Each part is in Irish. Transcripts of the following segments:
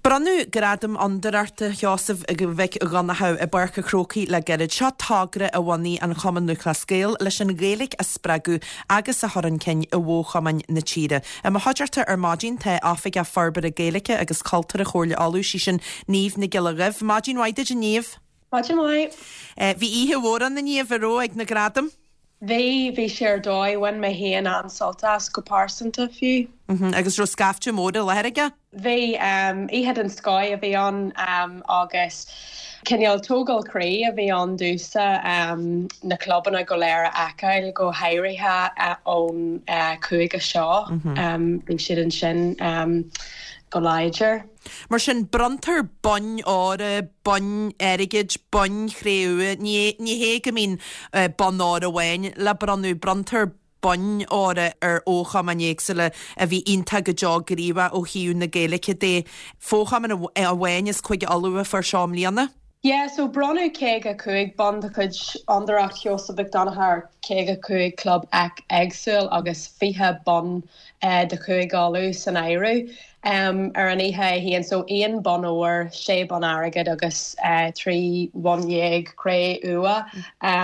Bronnadh Gradam Fhondúireachta Sheosaimh Mhic Dhonncha i bPáirc an Chrócaigh le gairid. Seo togra a bhunaigh an Chumann Lúthchleas Gael leis an Ghaeilge a spreagadh agus a chur chun cinn i bhfo-chumainn na tíre. I mo chuideachta ar maidin tá Oifigeach Forbartha Gaeilge agus Cultúrtha Chomhairle Uladh, sí sin Niamh Nic Giolla Dhuibh. Maidin mhaith duit a Niamh. Maidin mhaith. Bhí oíche mhór ann a Niamh, an raibh, ag na gradaim? Bhí, bhí sé ar dóigh. Bhain mé féin an-sult as, go pearsanta fiú. Agus raibh scaifte mór i láthair aige? Bhí, oíche den scoth a bhí ann agus cineál tógáil croí a bhí ann domhsa na clubanna go léir a fheiceáil, go háirithe ón chúige seo. Bhí siad ansin go láidir. Mar sin, bronntar boinn óir, boinn airgid, boinn chré-umha, ní hé go mbíonn bonn óir amháin le bronnadh, bronntar boinn óir ar fhochumainn éagsúla a bhí iontach go deo gníomhach ó thaobh na Gaeilge de. Fochumann amháin as Cúige Uladh a fuair seo i mbliana. Yeah, so bronnadh 55 bonn de chuid Fhondúireacht Sheosaimh Mhic Donncha ar 55 club éagsúil agus 20 bonn de Chúige Uladh san áireamh ar an oíche é féin. So aon bonn óir, sé bonn airgid agus 13 bhonn cré-umha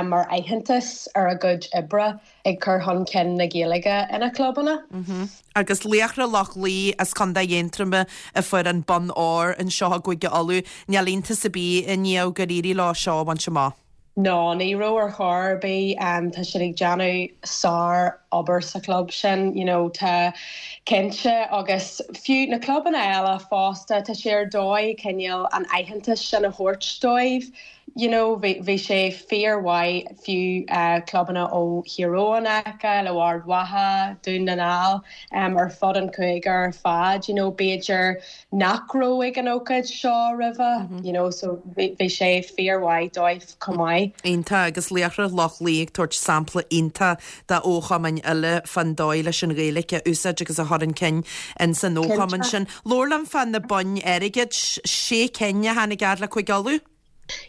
mar aitheantas ar a gcuid oibre ag cur chun cinn na Gaeilge ina gclubanna. Agus Laochra Loch Lao as Contae Aontroma a fuair an bonn óir anseo i gCúige Uladh. Níl iontas ar bith a Niamh gur éirigh leo seo a bhaint amach. No, ní raibh ar chor ar bith. Tá siad ag déanamh sár obair sa chlub sin, you know, tá cinnte agus fiú na clubanna eile fosta, tá sé ar dóigh cineál an aitheantas sin a thabhairt dóibh. You know, bhí, bhí sé fíor mhaith fiú clubanna ó Thír Eoghain a fheiceáil, ó Ard Mhacha, Dún na nGall, ar fud an chúige ar fad, you know, b'fhéidir nach raibh ag an ócáid seo roimhe, you know, so bhí sé fíor mhaith dóibh chomh maith. Iontach, agus Laochra Loch Lao ag tabhairt sampla iontach do fhochumainn eile fán dóigh leis an Ghaeilge a úsáid agus a chur chun cinn ins an fhochumann sin. Labhair liom fá na boinn airgid, sé cinn a tháinig fhad le Cúige Uladh?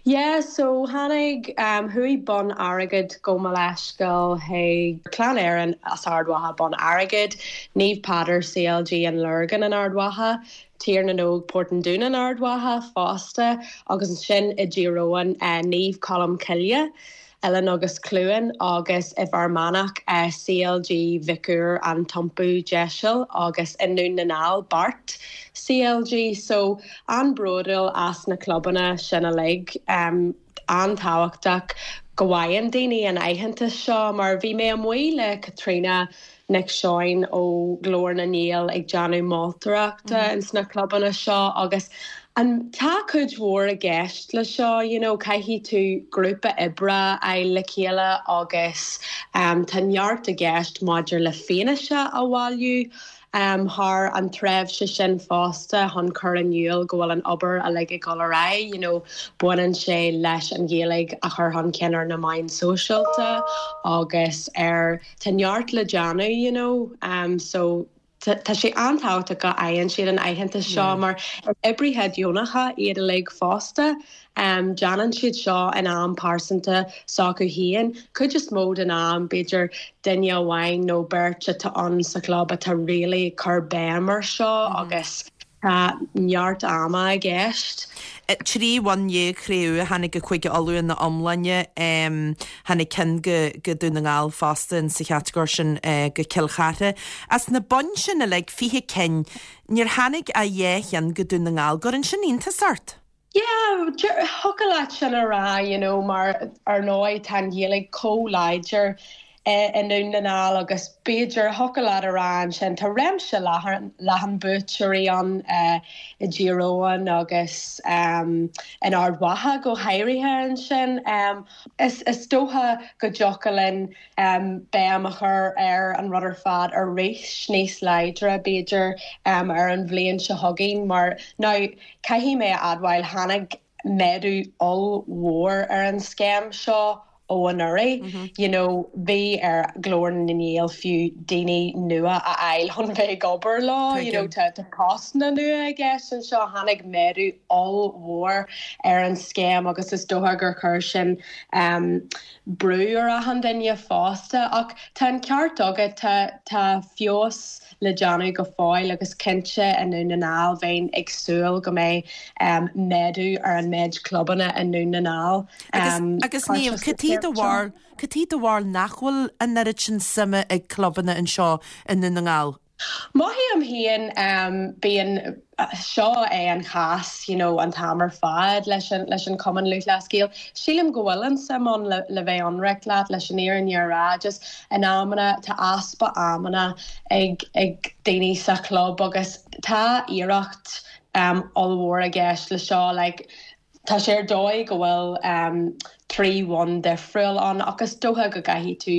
Yeah, so tháinig, chuaigh bonn airgid, gabh mo leithscéal, chuig Clann Éireann as Ard Mhacha bonn airgid, Naomh Peadar CLG an Lorgain in Ard Mhacha, Tír na nÓg Port an Dúin in Ard Mhacha fosta agus ansin i dTír Eoghain Naomh Colm Cille. Oileán agus Cluain agus i bhFear Manach, CLG Mhic Uidhir An tIompú Deiseal agus i nDún na nGall, Beart CLG. So, an-bhródúil as na clubanna sin uilig. An-tábhachtach go bhfaigheann daoine an aitheantas seo mar bhí mé amuigh le Caitríona Nic Seoin ó Ghlór na nGael ag déanamh moltóireachta ins na clubanna seo agus an tá cuid mhór i gceist le seo you know caithfidh tú grúpa oibre a fháil le chéile agus tá neart i gceist maidir le fianaise a bhailiú thar an tréimhse sin fosta chun cur in iúl go bhfuil an obair uilig ag dul ar aghaidh you know baineann sé leis an Ghaeilge a chur chun cinn ar na meáin sóisialta agus ar Tá neart le déanamh you know so tá sé an-tábhachtach go bhfaigheann siad an aitheantas seo mar is oibrithe deonacha iad uilig fosta. Déanann siad seo in am pearsanta s'acu féin. Cuid is mó den am b'fhéidir duine amháin nó beirt atá ann sa chlub atá really ag cur béim ar seo agus Tá neart ama i gceist. 13 bhonn chré-umha a tháinig go Cúige Uladh ina iomláine. Tháinig ceann go Dún na nGall fosta in sa chatagóir sin go Cill Chartha. As na boinn sin uilig, 20 cinn, níor tháinig ach dhá cheann go Dún na nGall. Gcuireann sin iontas ort? Yeah, thiocfadh leat sin a rá, you know, mar ar ndóigh tá an Ghaeilge chomh láidir i nDún na nGall agus b'fhéidir, thiocfadh leat a rá ansin, tá réimse leathan, leathan buaiteoirí ann i dTír Eoghain agus in Ard Mhacha go háirithe ansin. Is, is dócha go dtiocfadh linn béim a chur ar an rud ar fad arís níos láidre b'fhéidir ar an bhliain seo chugainn mar now Caithfidh mé a admháil, tháinig méadú ollmhór ar an scéim seo. ó anuraidh. You know bhí ar Ghlór na nGael fiú daoine nua a fháil chun bheith ag obair leo, you know tá postanna nua i gceist anseo. Tháinig méadú ollmhór ar an scéim agus is dócha gur chuir sin brú ar achan duine fosta. Ach tá an ceart agat, tá tá feabhas le déanamh go fóill agus cinnte i nDún na nGall bheinn ag súil go mbeidh méadú ar an méid clubanna i nDún na nGall. Agus Niamh, cad é do bharúil, cad é do bharúil nach bhfuil an oiread sin suime ag clubanna anseo i nDún na nGall? Mothaím féin, bíonn, seo é an chás you know an t-am ar fad leis an leis an Cumann Lúthchleas Gael. Sílim go bhfuil an suim ann le le bheith ionraic leat, leis an fhírinne a rá. Just in amanna tá easpa amanna ag ag daoine sa chlub agus tá iarracht um ollmhór i gceist le seo like Tá sé ar dóigh go bhfuil 3 bhonn difriúil ann ach is dócha go gcaithfidh tú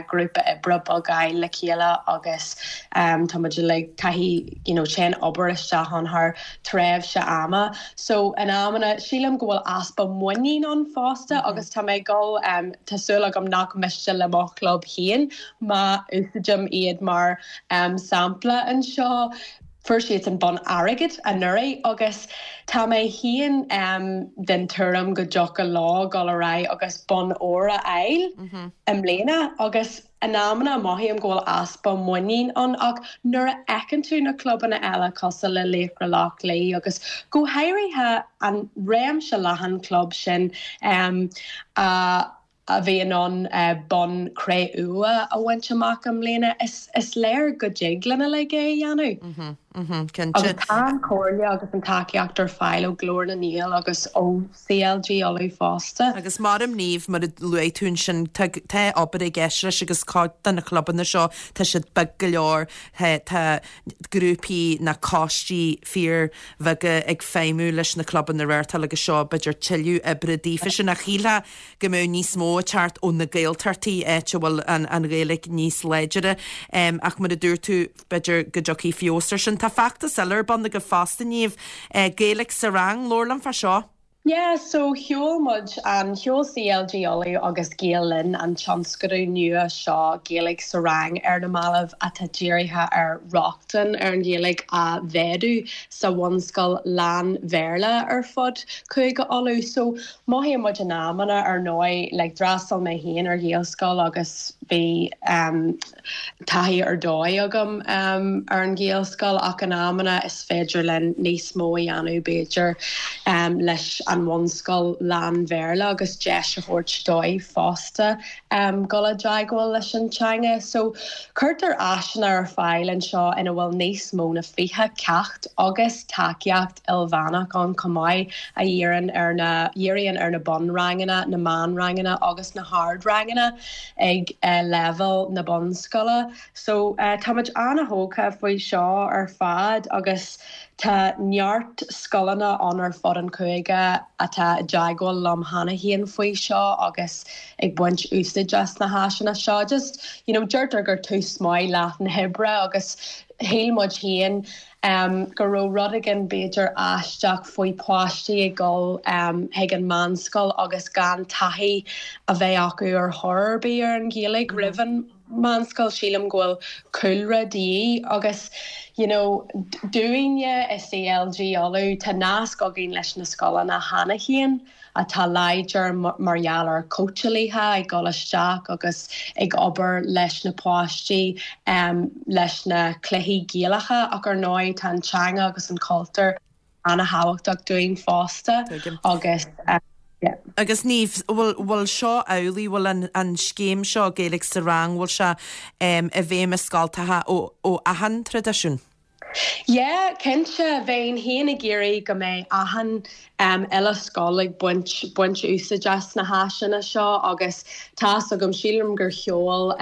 grúpa oibre beag a fháil le chéile agus tá muid uilig, caithfidh you know téann obair isteach ann thar tréimhse ama. So in amanna sílim go bhfuil easpa muinín ann fosta agus tá mé ag dul tá súil agam nach miste le mo chlub féin má úsáidim iad mar sampla anseo. Fuair siadsan bonn airgid anuraidh agus tá mé féin den tuairim go dtiocfadh leo dul ar aghaidh agus bonn óir a fháil i mbliana agus in amanna mothaím go bhfuil easpa muinín ann ach nuair a fheiceann tú na clubanna eile cosúil le Laochra Loch Lao agus go háirithe an réimse leathan club sin a a bhí in ann bonn cré-umha a bhaint amach i mbliana, is léir go dtig linn uilig é a dhéanamh. Cinnte. Agus tá an chomhairle agus an tacaíocht ar fáil ó Ghlór na nGael agus ó CLG Uladh fosta. Agus maram Niamh, mar a luaigh tú ansin, tá tá obair i gceist leis agus cuid de na clubanna seo, tá siad beag go leor, tá grúpaí ná coistí fíor bheaga ag feidhmiú leis na clubanna a reáchtáil agus seo b'fhéidir tuilleadh oibre daofa sin ach shílfeá go mbeadh níos mó ag teacht ó na Gaeltachtaí, áit a bhfuil an Ghaeilge níos láidire. Ach mar a dúirt tú, b'fhéidir go dtiocfaidh feabhas ar sin. Tá feachtas eile ar bun agaibh fosta, Niamh, Gaeilge sa Rang, labhair liom fá seo. Yeah, so sheol muid an, sheol CLG Uladh agus Gael Linn an tionscadal nua seo Gaeilge sa Rang ar na mallaibh atá dírithe ar rochtain ar an Ghaeilge a mhéadú sa bhunscoil lán-Bhéarla ar fud Chúige Uladh. So Mothaíonn muid in amanna, ar ndóigh, like d'fhreastail mé féin ar Ghaelscoil agus bhí em taithí ar dóigh agam em ar an Ghaelscoil ach in amanna is féidir linn níos mó a dhéanamh b'fhéidir em leis an bhunscoil lán-Bhéarla agus deis a thabhairt dóibh fosta em dul i dteagmháil leis an teanga. So cuirtear áiseanna ar fáil anseo ina bhfuil níos mó na 20 ceacht agus tacaíocht ilmheánach ann chomh maith a dhíríonn ar na dhíríonn ar na bunranganna, na meánranganna agus na hardranganna ag leibhéal na bunscoile. So táimid ana-thógtha faoi seo ar fad agus tá neart scoileanna ann ar fud an chúige atá i dteagmháil liom cheana féin faoi seo agus ag baint úsáid as na háiseanna seo. Just, you know, deirtear gur tús maith leath na hoibre agus shíl muid féin go raibh rud éigin b'fhéidir aisteach faoi páistí ag dul chuig an meánscoil agus gan taithí a bheith acu ar chor ar bith ar an Ghaeilge roimh an meánscoil. Sílim go bhfuil cúlra de dhíth agus you know dúinne i CLG Uladh tá nasc againn leis na scoileanna cheana féin. atá láidir mar gheall ar cóitseálaithe ag dul isteach agus ag obair leis na páistí leis na cluichí Gaelacha ach ar ndóigh tá an teanga agus an cultúr ana-thábhachtach dúinn fosta agus yeah. Agus Niamh, bhfuil, bhfuil seo amhlaidh, bhfuil an, an scéim seo Gaeilge sa Rang, bhfuil sé i bhfeidhm i scoltacha ó, ó achan traidisiún? Yeah, cinnte, bheinn féin ag iarraidh go mbeidh achan uile scoil ag baint baint úsáid as na háiseanna seo agus tá's agam, sílim gur sheol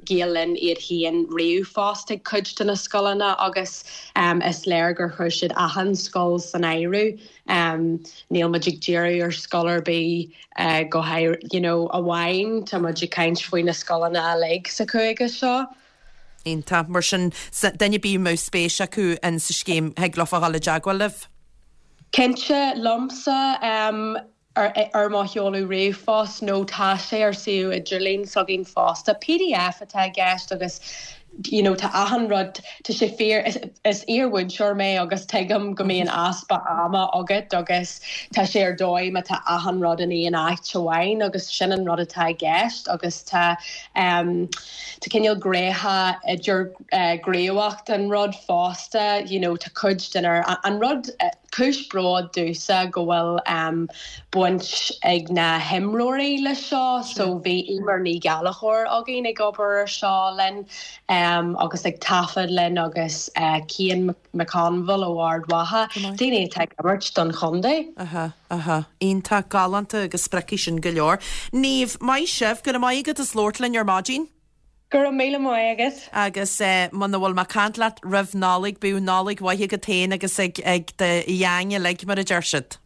Gael Linn iad féin ríomhphost ag cuid de na scoileanna agus is léir gur chuir siad achan scoil san áireamh. Níl muid ag díriú ar scoil ar bith go háirithe, you know, amháin, tá muid ag caint faoi na scoileanna uilig sa chúige seo. Iontach. Mar sin, duine ar bith a mbeadh spéis acu in sa scéim, thig leofa dhul i dteagmháil libh? Cinnte, liomsa. Ar ar mo sheoladh ríomhphost nó tá sé ar suíomh idirlín s'againn fosta. Pdf atá i gceist agus you know tá achan rud, tá sé fíor, is is iar-mhúinteoir mé agus tuigim go mbíonn easpa ama agat agus tá sé ar dóigh má tá achan rud in aon áit amháin agus sin an rud atá i gceist agus tá em tá cineál gnéithe idir eh gníomhach den rud fosta you know tá cuid den ar an rud eh Cúis bróid domhsa go bhfuil baint ag na himreoirí leis seo. So bhí Eimear Ní Ghallchóir againn ag obair ar seo linn agus ag taifead linn agus Cian McConville ó Ard Mhacha, daoine atá ag imirt don chontae. Aha, aha. Iontach, galánta agus spreagfaidh sin go leor. Niamh, maith sibh, go raibh maith agat as labhairt linn ar maidin. Go raibh míle maith agat. Agus muna bhfuil mé ag caint leat roimh Nollaig, bíodh Nollaig mhaith agat féin agus ag ag do gheaing uilig, mar a deir siad.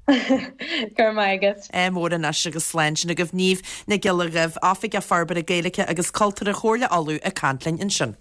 Go raibh maith agat. Ádh mór anois agus slán sin agaibh. Niamh Nic Giolla Dhuibh, Oifigeach Forbartha Gaeilge agus Cultúrtha Chomhairle Uladh ag caint linn ansin.